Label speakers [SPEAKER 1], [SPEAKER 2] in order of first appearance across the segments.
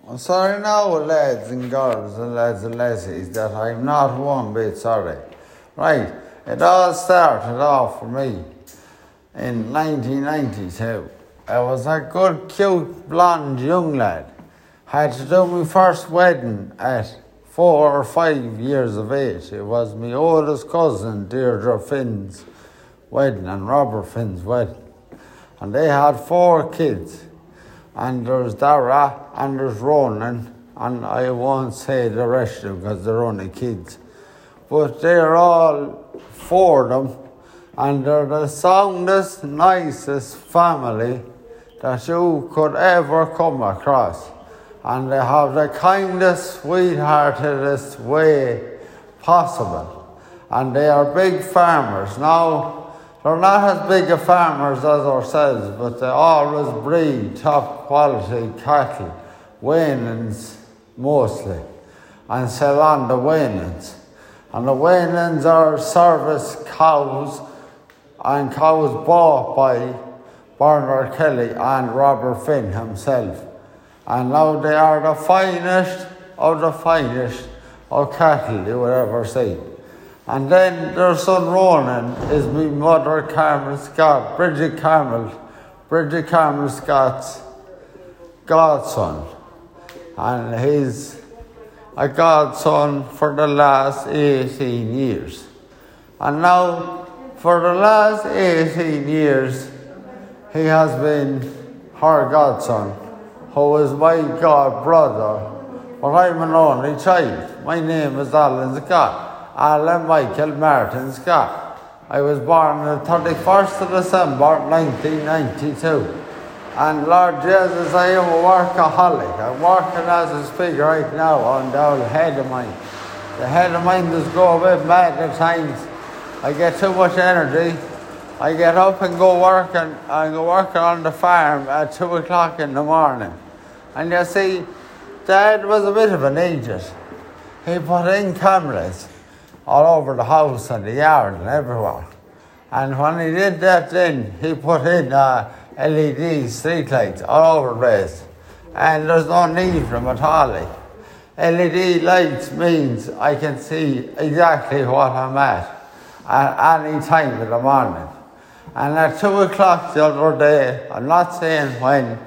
[SPEAKER 1] I'm sorry now, lads and girls and lads and lassies, that I'm not one bit sorry. Right, it all started off for me in 1992. I was a good, cute, blonde young lad. Had to do my first wedding at 4 or 5 years of age. It was my oldest cousin, Deirdre Finn's wedding and Robert Finn's wedding. And they had 4 kids. And there's Dara and there's Ronan, and I won't say the rest of them because they're only kids. But they're all 4 of them, and they're the soundest, nicest family that you could ever come across. And they have the kindest, sweetheartedest way possible. And they are big farmers. Now, they're not as big a farmers as ourselves, but they always breed top quality cattle, Wainans mostly, and sell on the Wainans. And the Wainans are service cows, and cows bought by Bernard Kelly and Robert Finn himself. And now they are the finest of cattle you would ever see. And then their son Ronan is my mother Carmel Scott, Bridget Carmel Scott's godson. And he's a godson for the last 18 years. And now, for the last 18 years, he has been her godson, who is my god brother, but I'm an only child. My name is Alan Scott. Alan Michael Martin Scott. I was born on the 31st of December 1992. And Lord Jesus, I am a workaholic. I'm working as I speak right now on the old head of mine. The head of mine does go a bit mad at times. I get too much energy. I get up and go working on the farm at 2 o'clock in the morning. And you see, Dad was a bit of an idiot. He put in cameras all over the house and the yard and everywhere. And when he did that then, he put in LED streetlights all over the place. And there's no need for them at all. LED lights means I can see exactly what I'm at any time in the morning. And at 2 o'clock the other day, I'm not saying when,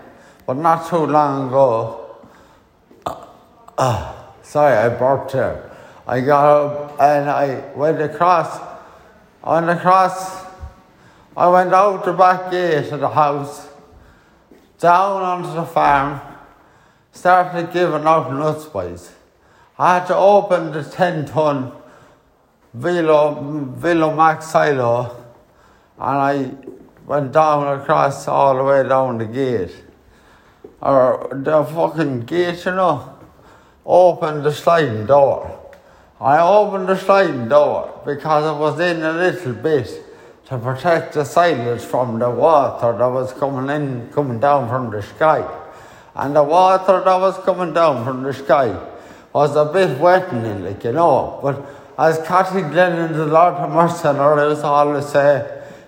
[SPEAKER 1] but not too long ago, sorry, I burped here. I got up and I went across. I went out the back gate of the house, down onto the farm, started giving out nuts boys. I had to open the 10-ton Velo Max silo, and I went down across all the way down the gate. Or the fucking gate, opened the sliding door. I opened the sliding door because it was in a little bit to protect the silage from the water that was coming down from the sky. And the water that was coming down from the sky was a bit wetting it, But as Cathy Glennon, the Lord of Mercy on her, used to always say,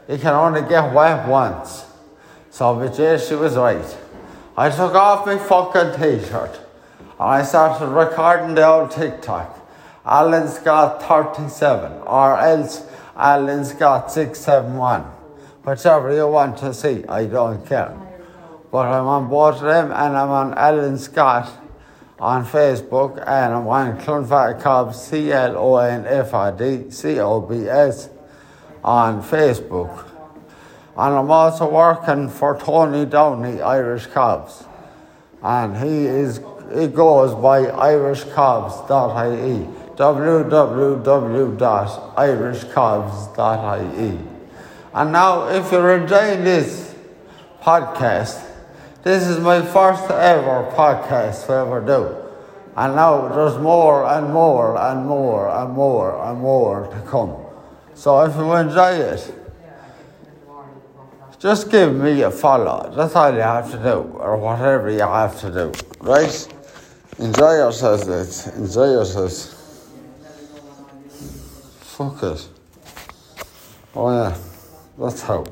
[SPEAKER 1] you can only get wet once. So, but yes, she was right. I took off my fucking t-shirt and I started recording the old TikTok. Alan Scott 37 or else Alan Scott 671. Whichever you want to see, I don't care. But I'm on both of them, and I'm on Alan Scott on Facebook, and I'm on Clonfat Cobbs CLONFRD COBS on Facebook. And I'm also working for Tony Downey Irish Cobbs. And he goes by irishcobbs.ie. www.irishcobbs.ie. And now, if you're enjoying this podcast, this is my first ever podcast I ever do. And now there's more and more and more and more and more to come. So if you enjoy it, just give me a follow. That's all you have to do, or whatever you have to do, right? Enjoy yourselves, lads. Enjoy yourselves. Fuck it. Oh yeah, that's how.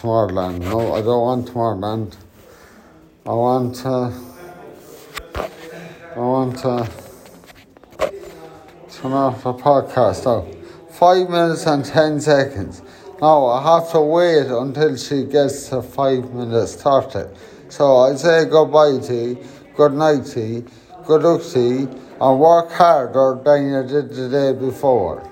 [SPEAKER 1] Tomorrowland. No, I don't want Tomorrowland. I want to turn off the podcast now. 5 minutes and 10 seconds. Now I have to wait until she gets to 5 minutes 30. So I say goodbye to you, good night to you, good luck to you, and work harder than you did the day before.